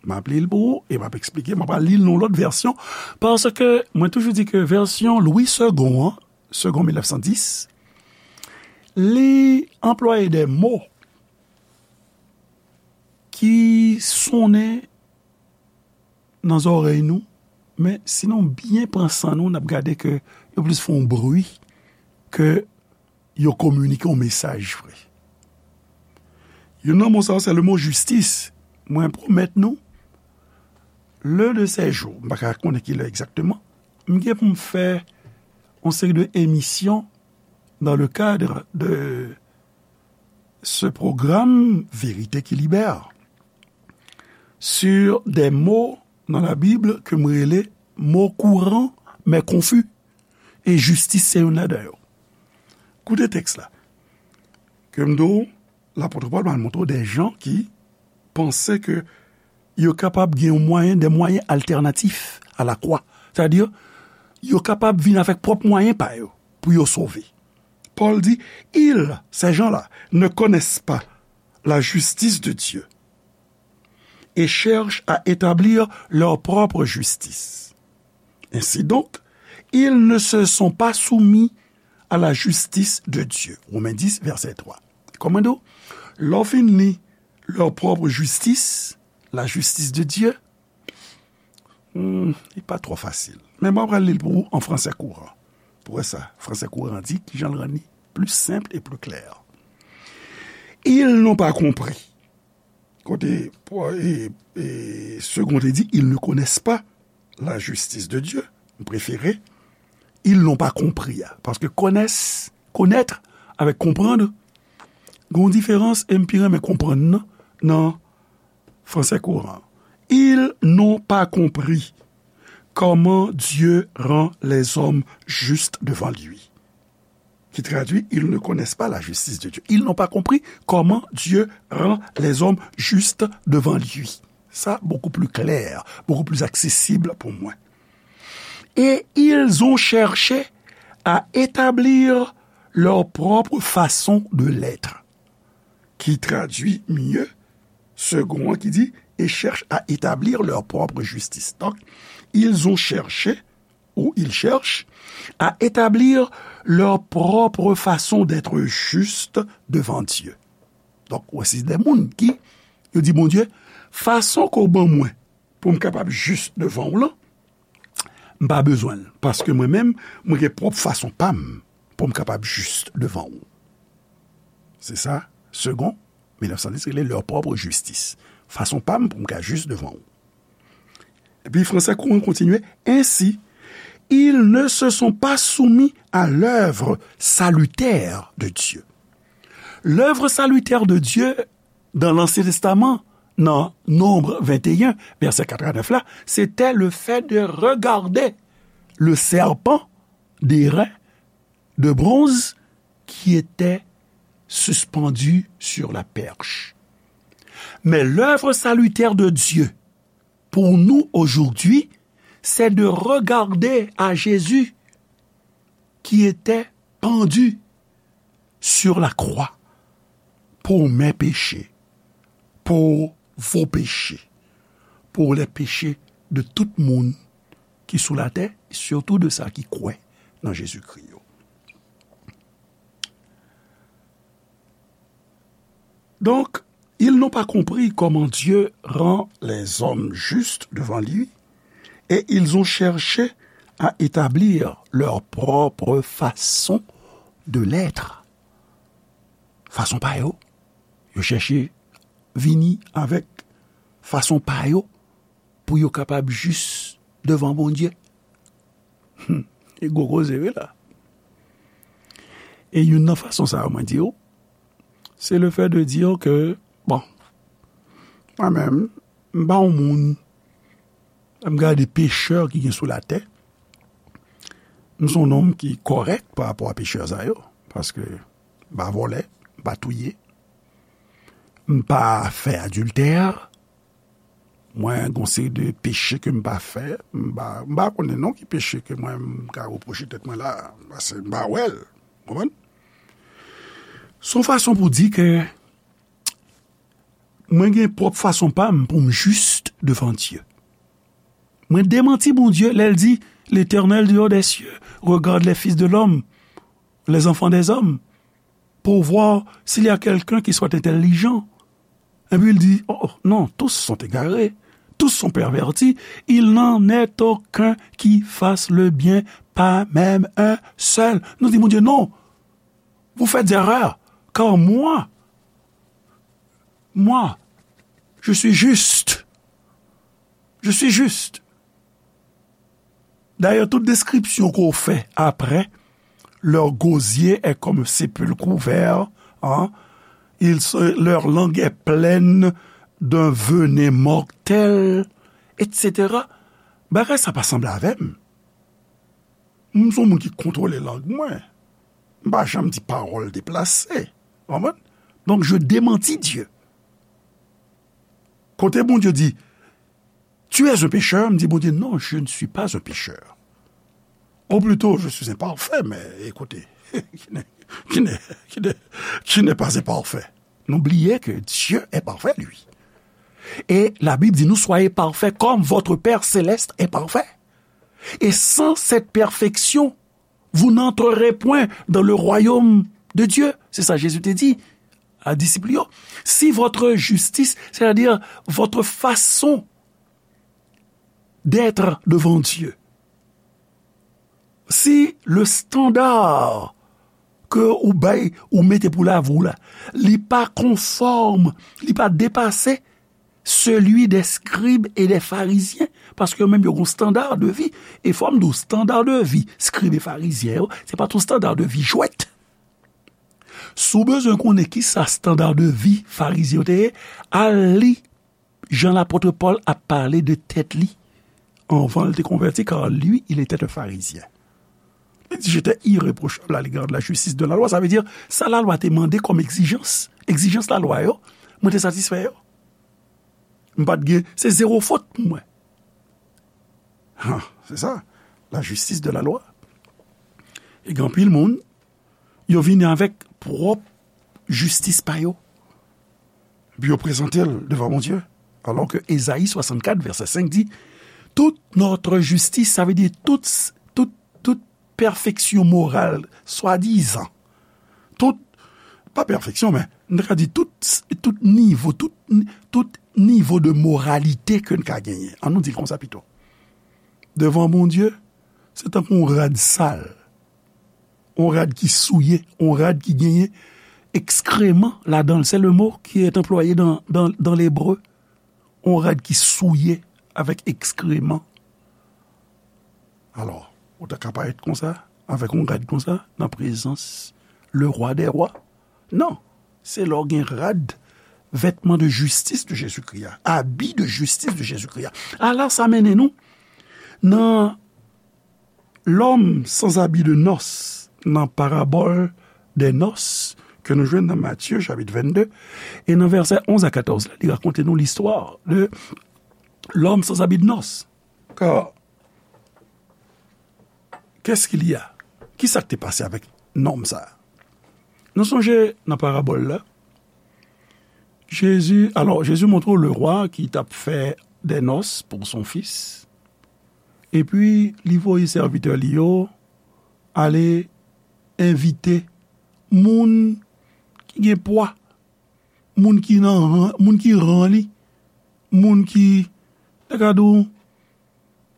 M ap li l pou ou e m ap eksplike, m ap li l nan yon lòt vèsyon, paske mwen toujou di ke vèsyon Louis Segond an, Segond mil nèf san dis, li anplwaye de mo ki sonnen nan zòrèy nou, men si nou byen pran san nou, n ap gade ke yo plis fè yon bri ke yo kominike yon mesaj vre. Youn nan mo sa yo, se le mo jistis. Mwen pwomèt nou, len de sè jou, m pa ka konnen ki lè egzakteman, m gen pou m fè yon seri de emisyon dans le cadre de ce programme Vérité qui libère sur des mots dans la Bible ke m rele mo kouran men konfi. E jistis se youn ladan yo. Koute tèks la. Ke m di w, lapot Pòl pral montre w de jan ki panse ke yo kapab gen yon mwayen, de mwayen altènatif a lakwa. Sètadi, yo kapab vin avèk pwòp mwayen pa yo pou yo sove. Pòl di, ils, ces gens-là, ne connaissent pas la justice de Dieu et cherchent à établir leur propre justice. Ainsi donc, ils ne se sont pas soumis à la justice de Dieu. Women dis, vèsè twa. Kòman di w? Lè w fin li leur propre justice, la justice de Dieu, hmm, li pa twò fasil. Men mwen pral li l pou ou an fransè kouran. Pou wè sa, fransè kouran di, kijan l rann li plus simple et plus clair. Ils n'ont pas compris. Kote, e, e, Segond te di, ils ne connaissent pas la justice de Dieu. M prefere, ils n'ont pas compris a. Paske connaissent, connaître, avèk comprendre, gen yon diferans, e m pi renmen konprann nan, nan fransè kouran. Ils n'ont pas compris comment Dieu rend les hommes justes devant lui. Qui traduit, ils ne connaissent pas la justice de Dieu. Ils n'ont pas compris comment Dieu rend les hommes justes devant lui. Ça, beaucoup plus clair, beaucoup plus accessible pour moi. Et ils ont cherché à établir leur propre façon de l'être, qui traduit mieux Segond an ki di, et cherchent à établir leur propre justice. Donc, ils ont cherché, ou ils cherchent, à établir leur propre façon d'être juste devant Dieu. Donk, ou wè, se de moun ki, yo di Bondye, fason ke w ban mwen pou m kapab jis devan w lan, m pa bezwen l, paske mwen menm, mwen gen pwòp fason pa m pou m kapab jis devan w. Se sa, Segond mil nèf san dis rele leur propre justice. Fason pa m pou m ka jis devan w. Epi fransè kouran kontinye, ainsi, ils ne se sont pas soumis à l'œuvre salutaire de Dieu. L'œuvre salutaire de Dieu dans l'Ancien Testament, nan Nombre vingt et un, verset quatre à neuf la, c'était le fait de regarder le serpent d'airain de bronze qui était suspendu sur la perche. Mais l'œuvre salutaire de Dieu pour nous aujourd'hui, c'est de regarder à Jésus qui était pendu sur la croix pour mes péchés, pour vos péchés, pour les péchés de tout moun ki sou latè, surtout de sa ki kwè nan Jezikri yo. Donc, ils n'ont pas compris comment Dieu rend les hommes justes devant lui, et ils ont cherché à établir leur propre façon de l'être. Façon pa yo. Yo chèche vini avèk façon pa yo pou yo kapab jis devan Bondye. Hmm. E gwo koze, wi, la. E youn nan fason sa yo, mwen di w, se le fait de dire que, bon, mwen menm, m pa yon moun, m gade pechè ki gen sou latè, m se yon nonm ki kòrèk pa rapò a pechè sa yo, paske m pa vòlè, m pa touye, m pa fè adiltè, mwen gon seri de peche ke m pa fè, m pa, m pa konnen non ki peche ke mwen m ka repwoche tèt mwen la, paske m pa wè l, konprann? Se yon fason pou di ke mwen gen pwòp fason pa m pou m jis devan Dye. Mwen demanti Bondye lè l di, L'Éternel du haut des cieux regarde les fils de l'homme, les enfants des hommes, pour voir s'il y a quelqu'un qui soit intelligent. Epi l di, oh, oh, non, tous sont égarés, tous sont pervertis, il n'en est aucun qui fasse le bien, pas même un seul. Nou di Bondye, non, vous faites erreur, car moi, moi, je suis juste. Je suis juste. D'ailleurs, tout description qu'on fait après, leur gosier est comme un sépulcre ouvert, hein, ils se, leur langue est pleine d'un venin mortel, et cetera. Bagay sa pa sanble avè m. M se yon moun ki kontwole lang mwen. M pa janm di pawòl deplase. Konprann? Donc, je démentis Dieu. Kote Bondye di, tu es un pécheur, m di Bondye, non, je ne suis pas un pécheur. Ou plito, je suis imparfait, mais écoutez, qui n'est, qui n'est, qui n'est, qui n'est pas imparfait? Nou bliye ke Dieu est parfait, lui. Et la Bible dit, nous soyez parfaits comme votre Père céleste est parfait. Et sans cette perfection, vous n'entrerez point dans le royaume de Dieu. C'est ça Jésus te dit à disciples. Si votre justice, c'est-à-dire votre façon d'être devant Dieu, si le standard ke ou bay, ou mete pou lavi w la, li pa konfòm, li pa depase celui des scribes et des pharisiens, paske yo menm yo gon standard de vie. E fò m di w, standard de vie scribes et pharisiens yo, se pa t yon standard de vie jwèt. Si w bezwen konnen kisa standard de vie farizyen yo te ye, al li jan lapot Pòl ap pale de tèt li anvan l te konvèti, car lui, il était un pharisien. Li di, j'étais irréprochable à l'égard de la justice de la loi. Sa vle di, sa lalwa te mande kòm egzijans, egzijans lalwa yo, mwen te satisfè yo. M pa t gen, se zewo fot pou mwen. Ha, se sa, la justice de la loi. E gen anpil moun, yo vini avèk pwòp jistis pa yo. Epi yo prezante l devan Bondye. Alò ke Ezayi swasannkat, vèsè senk di, toute notre justice, sa vle di tout, tout, tout pèfeksyon moral, swadizan. Tout, pa pèfeksyon, men, nou ka di tout, tout nivo, tout, tout nivo de moralite ke n ka genyen. An nou di l konsa pito. Devan Bondye, se tankou yon rad sal. Yon rad ki souye, yon rad ki genyen ekskreman ladan l. C'est le mot qui est employé dans, dans, dans l'hébreu. Yon rad ki souye avèk ekskreman. Alò, ou ta ka parèt konsa, avèk yon rad konsa, nan prezans le rwa dè rwa? Non, se lè w gen rad vêtements de justice de Jésus-Christ a, habits de justice de Jésus-Christ a. Ala sa mennen nou nan l'homme sans habit de noces, nan parabòl des noces ke nou jwenn nan Matye chapit vennde, e nan vèsè onz a katòz la, li rakonte nou listwa de l'homme sans habit de noces. Car, qu'est-ce qu'il y a? Ki sa k te pase avèk nonm sa a? Nou sonje nan parabòl la, Jezi, alò, Jezi montre w le rwa ki t ap fè des noces pour son fils. Epi, li voye sèvitè li yo ale envite moun ki gen pwa, moun ki nan ran, moun ki ran li, moun ki, ta ka di w,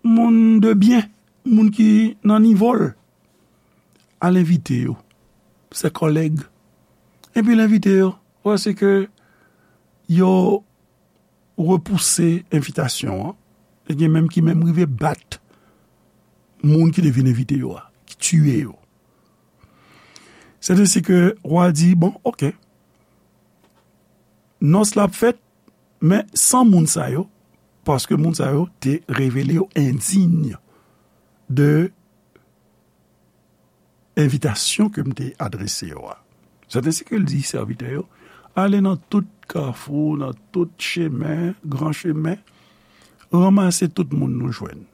moun de byen, moun ki nan nivo l. Al envite yo, ses collègues. Epi l envite yo, paske yo repouse envitasyon an. E gen menm ki menm rive bat moun ki te vin envite yo a, ki tiye yo. Se te si ke wa di, bon, oke, nòs la ap fèt, men san moun sa yo, paske moun sa yo te revele yo endiy de envitasyon ke m te adrese yo a. Se te si ke l di sèvitè yo, ale nan tout kafou, nan tout chemen, gran chemen, ranmase tout moun nou jwenn.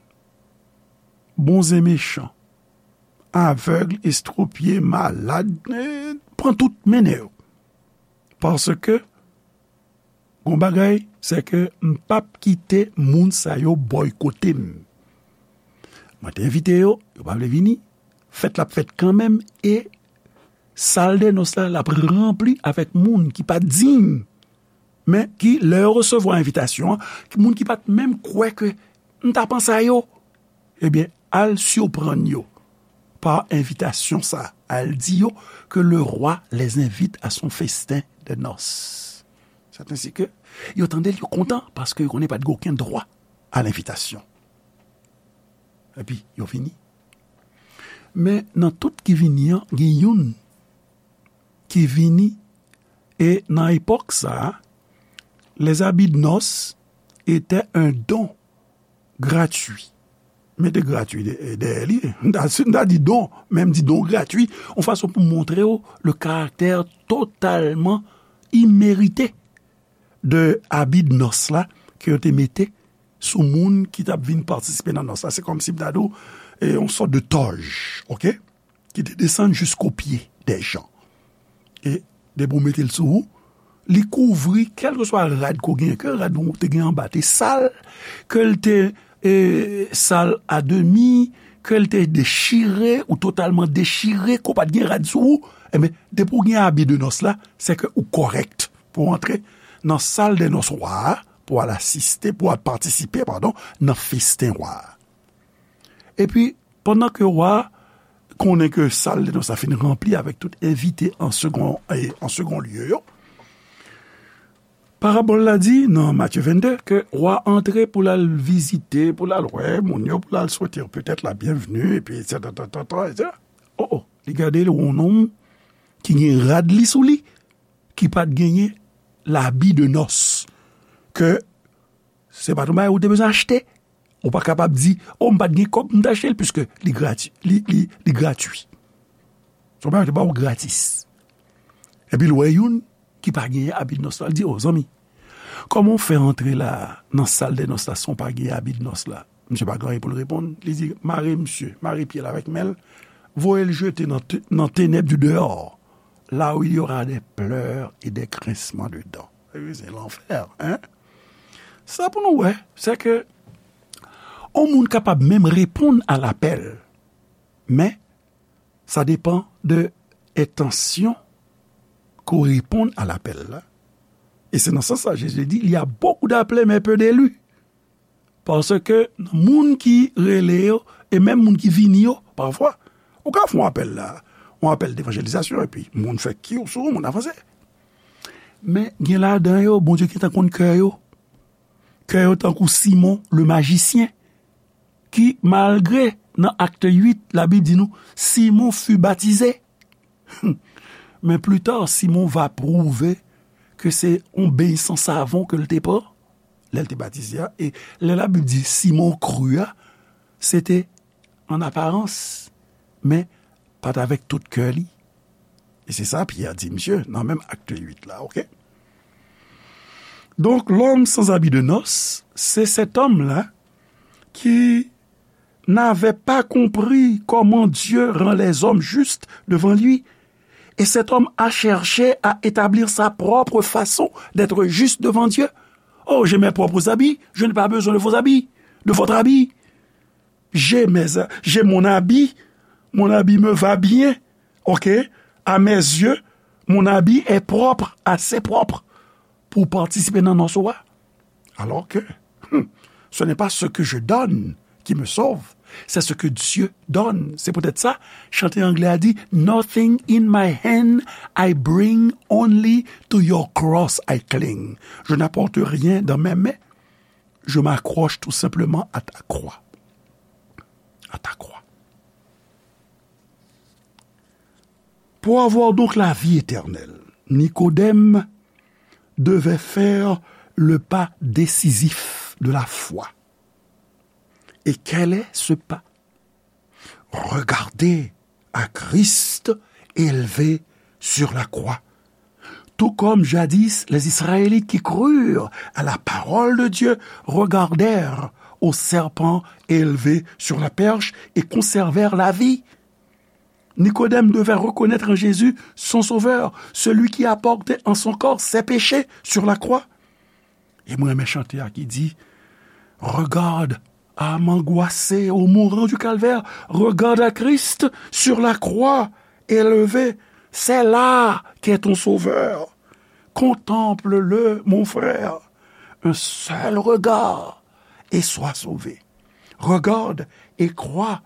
Bon e mechan, avèg, estwopye, malad, eh, pran tout mennen yo. Paske, gon bagay, se ke m p ap kite moun sa yo bòykote m. Mwen te envite yo, yo pa vle vini. Fèt la ap fèt kanmenm, e sal de nòs la, l ap ranpli avèk moun ki pa diy, men ki, lè yo resevwa envitasyon an, ki, moun ki pa t menm kwè ke m ta panse a yo, ebyen, al siprann yo pa envitasyon sa, al di yo que le roi les invite à son festin de noces. C'est ainsi que yo tande l, yo kontan, paske yo konnen pa t gen okenn dwa a lenvitasyon. Epi, yo vini. Men nan tout ki vini an, gen youn ki vini, e nan epòk sa a, les habits de noces étaient un don gratuit. Mete gratuit dèyè li. M ta, m ta di don, men m di don gratuit, yon fason pou montre w le karaktè totalman imerite de abi de nòs la ke yo te mete sou moun ki t ap vin patisipe nan nòs la. Se kòmsi m ta di w, e, yon sòt de tòj, oke? Ki te desann jisko pye dè jan. E depi w mete l sou ou, li kouvri kèlkeswa rad ke w genyen, ke rad ou te gen anba te sal, ke l te, e, sal a demi, ke l te dechire ou totalman dechire, ke w pa t gen rad sou ou, enben, depi w gen abi de nòs la, se ke ou kòrèk pou w antre nan sal de nòs wa a, pou w al asiste, pou w al patisipe, padon, nan festen wa a. Epi, pandan ke wa a konnen ke sal de nòs la fin ranpli avèk tout envite an segon, e, an segon lye yo, parabòl la di nan Matye vennde ke wa a antre pou l al vizite, pou l al wè moun yo, pou l al swete yo petèt la byenvni, epi etsetera, etsetera, etsetera. O, o, li gade l, yon nonm ki gen rad li sou li, ki pa t genyen labi de nòs, ke se pa t yon bagay ou te bezwen achte. Ou pa kapab di, o, m pa t gen kòb, m t achte l, piske li grati-, li, li, li gratui. Se yon bagay yo te ba w gratis. Epi l wè youn ki pa genyen abi de nòs la, l di, o, zanmi, kòman w fè antre la, nan sal de nòs la, san w pa genyen abi de nòs la? Misye pa gen anyen pou l reponn. Li di, mare misye, mare pye l avèk men l, voye l jete nan te-, nan tenèb di deyò, là où il y aura des pleurs et des grincements de dents. Wi, se lanfè, hein? Sa pou nou wè, se ke yon moun kapab menm reponn a lapèl, men sa depann de entansyon ke w reponn a lapèl la. E se nan sans sa Jezi di, il y a beaucoup d'appelés, mais peu d'élus. Paske nan moun ki rele yo, e menm moun ki vini yo, pafwa, ou ka fè yon apèl la, yon apèl devanjelizasyon, epi moun fè kiw sou ou, moun avanse. Men gen ladan yo, Bondye gentan konn kè yo. Kè yo tankou Simon le majisyen, ki, malgre nan Acte huit, Labib di nou, Simon fut baptisé. Mais plus tard, Simon va prouver ke se yon beny san savon ke l te pran lè l te batize a. E lè Labib di Simon kri a, se te an aparans, men pa t avèk tout kè li. E se sa Pyè di misye nan menm Akt uit la, oke? Donc, l'homme sans habit de noces, c'est cet homme-là qui n'avait pas compris comment Dieu rend les hommes justes devant lui. Et cet homme a cherché à établir sa propre façon d'être juste devant Dieu. Oh, j'ai mes propres habits, je n'ai pas besoin de vos habits, de votre habit. J'ai mes, j'ai mon habit, mon habit me va bien, ok? À mes yeux, mon habit est propre, assez propre pour participer dans nos soins. Alors que, hmm, ce n'est pas ce que je donne qui me sauve, c'est ce que Dieu donne. C'est peut-être ça, chanté anglais a dit, nothing in my hand I bring, only to your cross I cling. Je n'apporte rien dans mes mains, je m'accroche tout simplement à ta croix. À ta croix. Pour avoir donc la vie éternelle, Nicodème devait faire le pas décisif de la foi. Et quel est ce pas? Regarder à Christ élevé sur la croix. Tout comme jadis les Israélites qui crurent à la parole de Dieu regardèrent au serpent élevé sur la perche et conservèrent la vie. Nicodème devait reconnaître en Jésus son Sauveur, celui qui a porté en son corps ses péchés sur la croix. E mwen renmen chante a ki di, regarde à m'angoissé au mourant du calvaire, regarde à Christ sur la croix élevé, c'est là qu'est ton Sauveur. Contemple-le, mon frère, un seul regard et sois sauvé. Regarde et crois.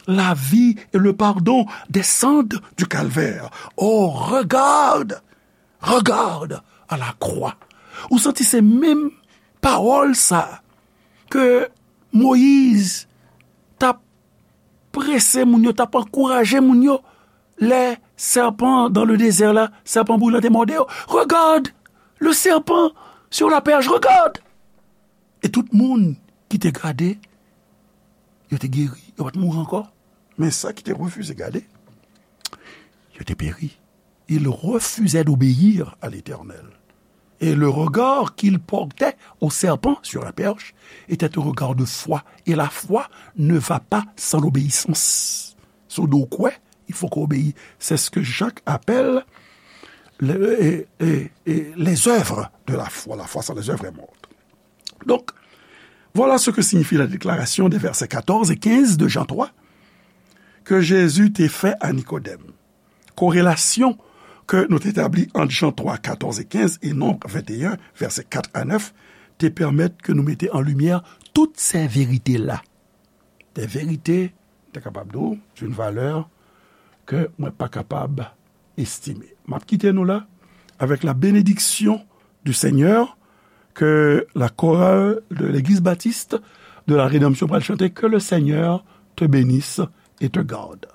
La vie et le pardon descendent du calvaire. Oh, regarde, regarde à la croix. Ou santi se menm pawòl sa ke Moyiz t ap prese moun yo, t ap ankouraje moun yo, lè serpent dans le désert la, serpent brûlant te mòde yo. Regarde le serpent sur la perche, regarde. E tout moun ki te gade, yo te geri, yo pa t mouri ankò. Men sa ki te refize gade, yo te peri. Ils refusaient d'obéir à l'Éternel. Et le regard qu'ils portaient au serpent sur la perche était un regard de foi. Et la foi ne va pas sans l'obéissance. Si w di w kwè, il faut qu'on obéisse. C'est ce que Jacques appelle le- et- et- et les œuvres de la foi. La foi sans les œuvres est morte. Donc, voilà ce que signifie la déclaration des versets quatorze et quinze de Jean trois que Jésus te fè a Nikodèm. Korelasyon ke nou te tabli ant Jan twa, katòz e kenz e Nonb venteyen, vèsè kat a nèf, te pèmèt ke nou mete an limyè tout sè verite la. Des vérités, m ta kapab di w, d'une valeur ke mwen pa kapab estime. M ap kite nou la avec la bénédiction du Seigneur, ke la chorale de l'Église Baptiste de la Rédemption pral chante, que le Seigneur te bénisse et te garde.